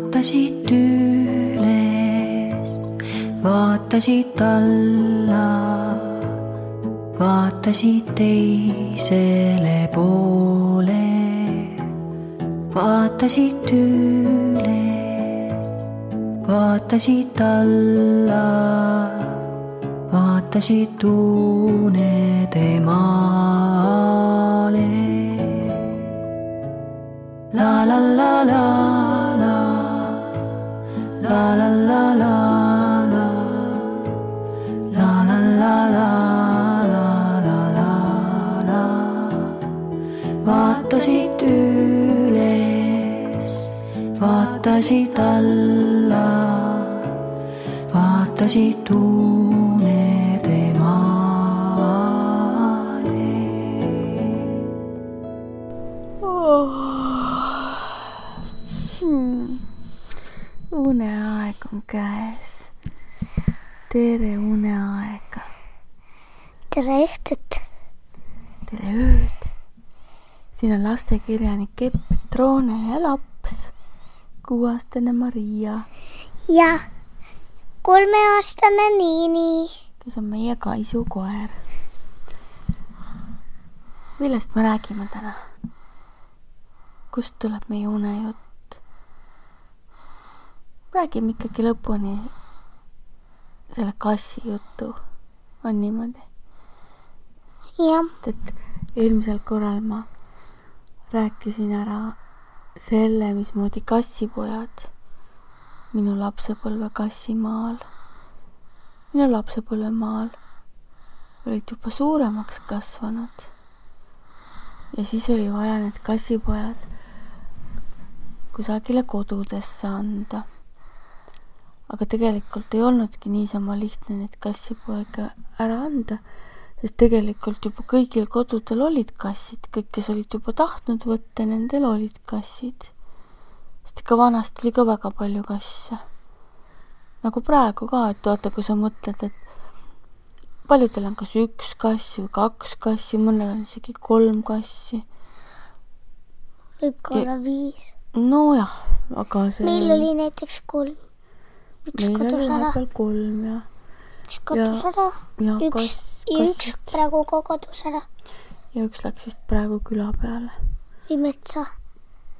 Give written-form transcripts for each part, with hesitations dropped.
vaatasid üles, vaatasid alla, vaatasid teisele poole, vaatasid üles, vaatasid alla, vaatasid unede maale. La la la la la, la la la la la, la la la la la la la la. Vaatasid üles, vaatasid alla, vaatasid unede maale. Uneaeg on käes. Tere uneaega. Tere õhtut. Tere ööd. Siin on lastekirjanik Epp Petrone ja laps, 6-aastane Maria. Ja 3-aastane Niini, kes on meie Kaisu koer. Millest me räägime täna? Kust tuleb meie unejutt? Räägime ikkagi lõpuni selle kassi juttu. On niimoodi? jah, Et eelmisel korral ma rääkisin ära selle, mismoodi kassipojad minu lapsepõlve kassimaal, minu lapsepõlvemaal olid juba suuremaks kasvanud. Ja siis oli vaja need kassipojad kusagile kodudesse anda. Aga tegelikult ei olnudki niisama lihtne neid kassipoega ära anda, sest tegelikult juba kõigil kodudel olid kassid, kõik, kes olid juba tahtnud võtta, nendel olid kassid. Sest ikka vanasti oli ka väga palju kasse. Nagu praegu ka, et vaata, kui sa mõtled, et paljudel on kas 1 kass või 2 kassi, mõnel on isegi 3 kassi. võib ka olla 5. No jah, aga see... Meil oli näiteks 3. Üks meil kadus oli ära. vahepeal 3 ja... Üks kadus ära. Ja Üks praegu ka kadus ära. Ja üks läks vist praegu küla peale. Või metsa.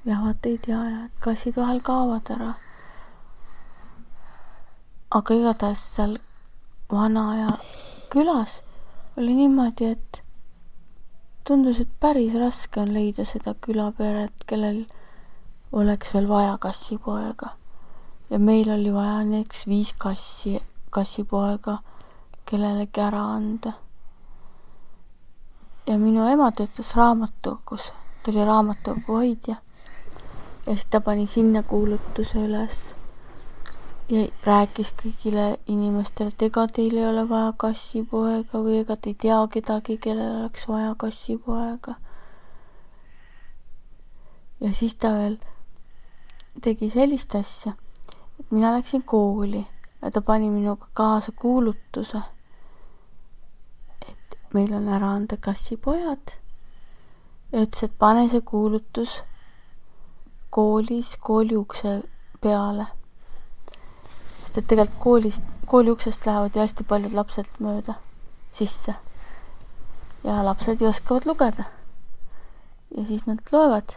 Ja vaata ei tea, ja et kassid vahel kaovad ära. Aga igatahes seal vana ja külas oli niimoodi, et tundus, et päris raske on leida seda külaperet, kellel oleks veel vaja kassipoega. Ja meil oli vaja näiteks 5 kassipoega kellelegi ära anda. Ja minu ema töötas raamatukogus, ta oli raamatukogu hoidja. Ja siis ta pani sinna kuulutuse üles ja rääkis kõigile inimestele, et ega teil ei ole vaja kassipoega või ega te ei tea kedagi, kellel oleks vaja kassipoega. Ja siis ta veel tegi sellist asja, et mina läksin kooli ja ta pani minuga kaasa kuulutuse, et meil on ära anda kassipojad. Ja ütles, et pane see kuulutus koolis kooli ukse peale. Sest et tegelikult kooli uksest lähevad ju hästi paljud lapsed mööda sisse. Ja lapsed ju oskavad lugeda. Ja siis nad loevad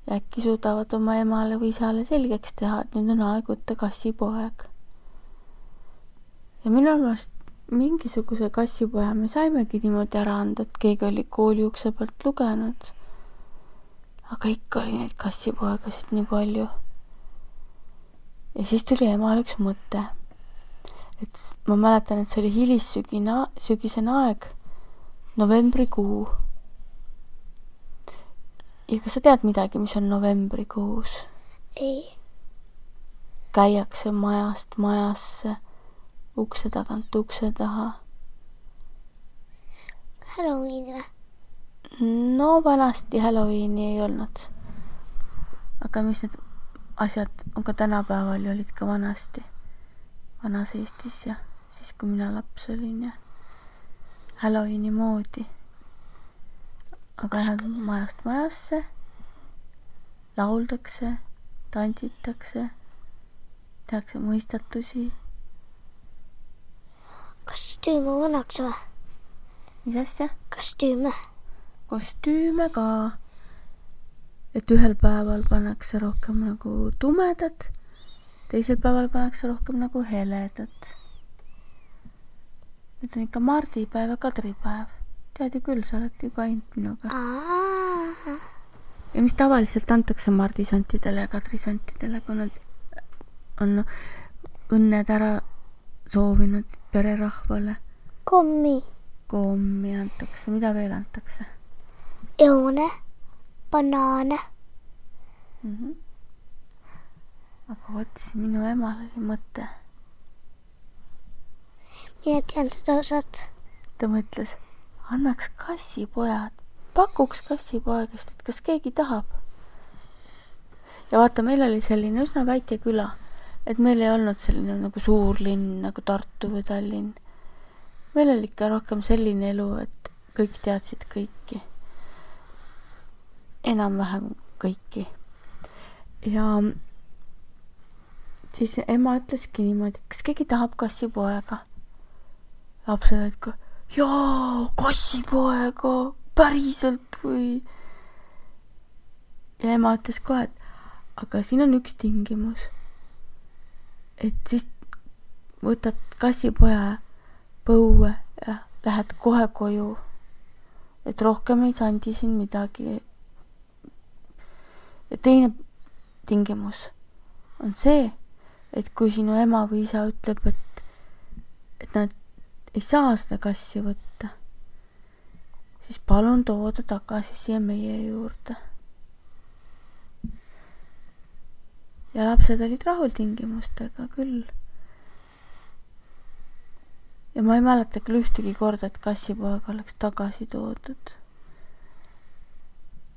ja äkki suudavad oma emale või isale selgeks teha, et nüüd on aeg võtta kassipoeg. Ja minu arvast mingisuguse kassipoja me saimegi niimoodi ära anda, et keegi oli kooli ukse pealt lugenud. Aga ikka oli neid kassipoegasid nii palju. Ja siis tuli emal üks mõte. Et ma mäletan, et see oli hilissügisene aeg, novembrikuu. Ja kas sa tead midagi, mis on novembrikuus? Ei. Käiakse majast majasse, ukse tagant ukse taha. Halloween või? No vanasti Halloweeni ei olnud. Aga mis need asjad on ka tänapäeval ja olid ka vanasti. Vanas Eestis ja siis kui mina laps olin ja Halloweeni moodi. Aga lähed majast majasse, lauldakse, tantsitakse, tehakse mõistatusi. kostüüme pannakse või? Mis asja? Kostüüme ka. Et ühel päeval pannakse rohkem nagu tumedat, teisel päeval pannakse rohkem nagu heledat. Need on ikka mardipäev ja kadripäev. Tead ju küll, sa oled ju ka ainult minuga. Ja mis tavaliselt antakse mardisantidele ja kadrisantidele, kui nad on õnned ära soovinud pererahvale? Kommi antakse. Mida veel antakse? Õune, banaane. Aga vot siis minu emal oli mõte. Mina tean seda osad. Ta mõtles, annaks kassipojad, pakuks kassipoegast, et kas keegi tahab. Ja vaata, meil oli selline üsna väike küla, et meil ei olnud selline nagu suur linn nagu Tartu või Tallinn. Meil oli ikka rohkem selline elu, et kõik teadsid kõiki. Enam-vähem kõiki. Ja siis ema ütleski niimoodi, et kas keegi tahab kassipoega. Lapsed olid ka, jaa, kassipoega, päriselt või? Ja ema ütles kohe, et aga siin on üks tingimus. Et siis võtad kassipoja põue ja lähed kohe koju. Et rohkem ei sandi siin midagi. Ja teine tingimus on see, et kui sinu ema või isa ütleb, et nad ei saa seda kassi võtta, siis palun tooda tagasi siia meie juurde. Ja lapsed olid rahul tingimustega küll. Ja ma ei mäleta küll ühtegi korda, et kassipoeg oleks tagasi toodud.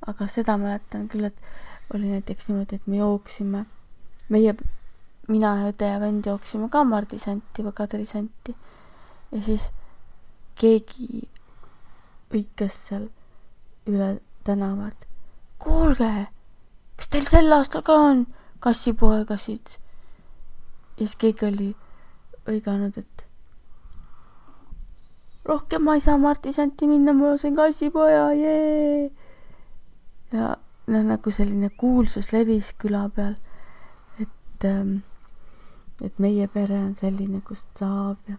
Aga seda mäletan küll, et oli näiteks niimoodi, et me jooksime, mina ja õde ja vend jooksime ka mardisanti või kadrisanti. Ja siis keegi õikas seal üle tänavat. Kuulge, kas teil sel aastal ka on kassipoegasid? Ja siis keegi oli õiganud, et rohkem ma ei saa mardisanti minna, ma sain kassipoja, jee! Ja nagu selline kuulsus levis küla peal, et meie pere on selline, kust saab ja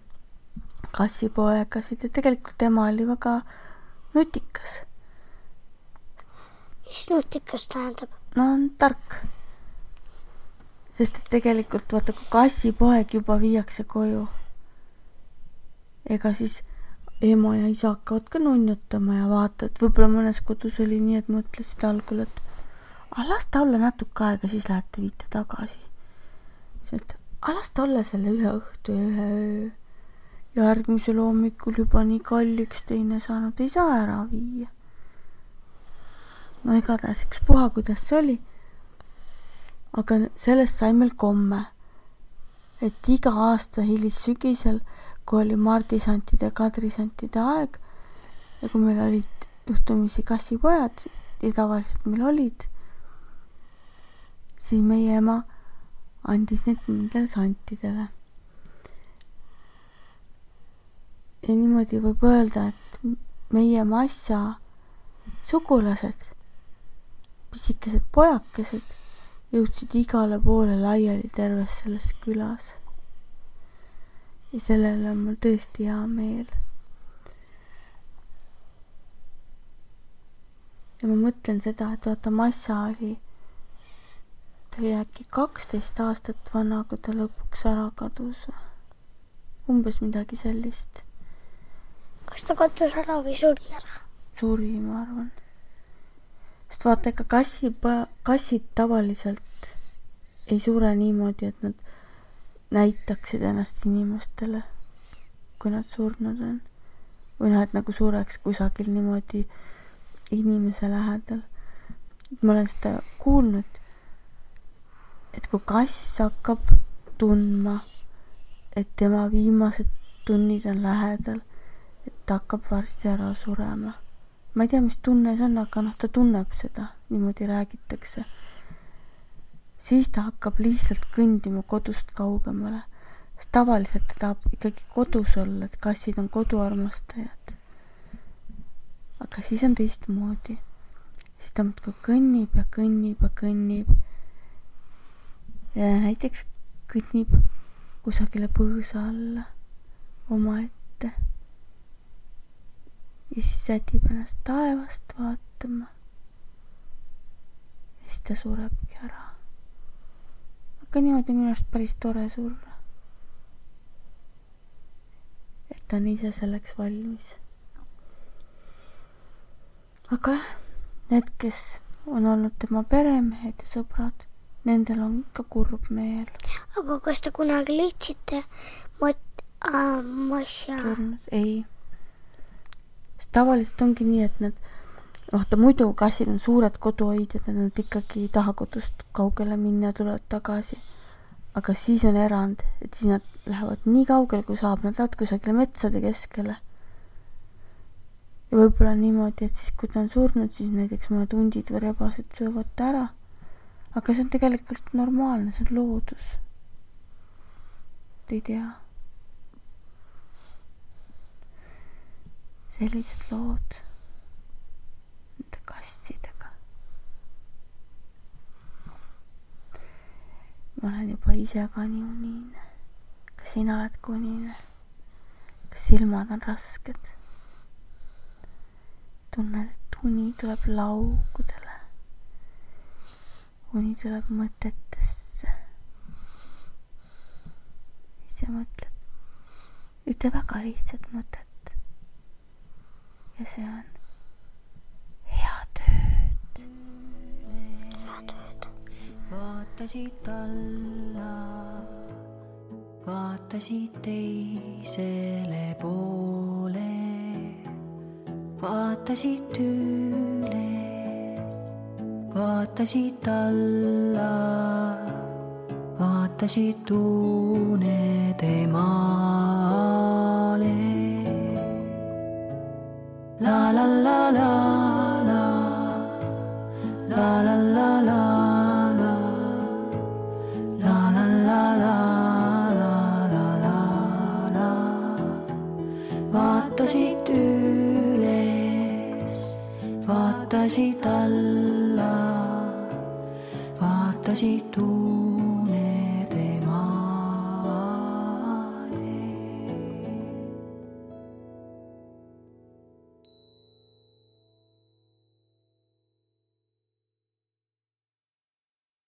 kassipoegasid ja tegelikult ema oli väga nutikas. Mis nutikas tähendab? No on tark. Sest et tegelikult vaata, kui kassipoeg juba viiakse koju, ega siis ema ja isa hakkavad ka nunnutama ja vaata, et võib-olla mõnes kodus oli nii, et mõtlesid algul, et las ta olla natuke aega, siis lähete viite tagasi. Siis et las ta olla selle ühe õhtu ja ühe öö. Ja järgmisel hommikul juba nii kalliks teine saanud, ei saa ära viia. No igatahes üks puha, kuidas see oli. Aga sellest sai meil komme, et iga aasta hilissügisel, kui oli mardisantide ja kadrisantide aeg ja kui meil olid juhtumisi kassipojad ja tavaliselt meil olid, siis meie ema andis need nendele santidele. Ja niimoodi võib öelda, et meie massa sugulased, pisikesed pojakesed, jõudsid igale poole laiali terves selles külas. Ja sellele on mul tõesti hea meel. Ja ma mõtlen seda, et vaata, massa oli, ta oli äkki 12 aastat vana, kui ta lõpuks ära kadus. Umbes midagi sellist. Kas ta kadus ära või suri ära? Suri, ma arvan. Sest vaata, ega kassid tavaliselt ei sure niimoodi, et nad näitaksid ennast inimestele, kui nad surnud on. Või nad nagu sureks kusagil niimoodi inimese lähedal. Ma olen seda kuulnud, et kui kass hakkab tundma, et tema viimased tunnid on lähedal, et ta hakkab varsti ära surema. Ma ei tea, mis tunne see on, aga ta tunneb seda. Niimoodi räägitakse. siis ta hakkab lihtsalt kõndima kodust kaugemale. Sest tavaliselt ta tahab ikkagi kodus olla, et kassid on koduarmastajad. Aga siis on teistmoodi. Siis ta muudkui kõnnib ja kõnnib ja kõnnib. Ja näiteks kõnnib kusagile põõsa alla omaette. Ja siis sätib ennast taevast vaatama. Ja siis ta surebki ära. Aga niimoodi minu arust päris tore surra. Et ta on ise selleks valmis. Aga need, kes on olnud tema peremehed ja sõbrad, nendel on ikka kurb meel. Aga kas te kunagi leidsite Masja? Surnud? Ei. Sest tavaliselt ongi nii, et need, vaata muidu kassid on suured koduhoidjad, nad ikkagi ei taha kodust kaugele minna ja tulevad tagasi. Aga siis on erand, et siis nad lähevad nii kaugele, kui saab, nad lähevad kusagile metsade keskele. Ja võib-olla niimoodi, et siis kui ta on surnud, siis näiteks mõned hundid või rebased söövad ta ära. Aga see on tegelikult normaalne, see on loodus. Ei tea. Sellised lood nende kassidega. Ma olen juba ise ka nii unine. Kas sina oled ka unine? Kas silmad on rasked? Tunned, et uni tuleb laugudele. Uni tuleb mõtetesse. Ja mõtled ühte väga lihtsat mõtet. Ja see on hea tööd. Hea tööd. Vaatasid alla, vaatasid teisele poole, vaatasid üles, vaatasid alla, vaatasid unede maale. La la la la la, la la la la la, la la la la la la la. Vaatasid üles, vaatasid alla, vaatasid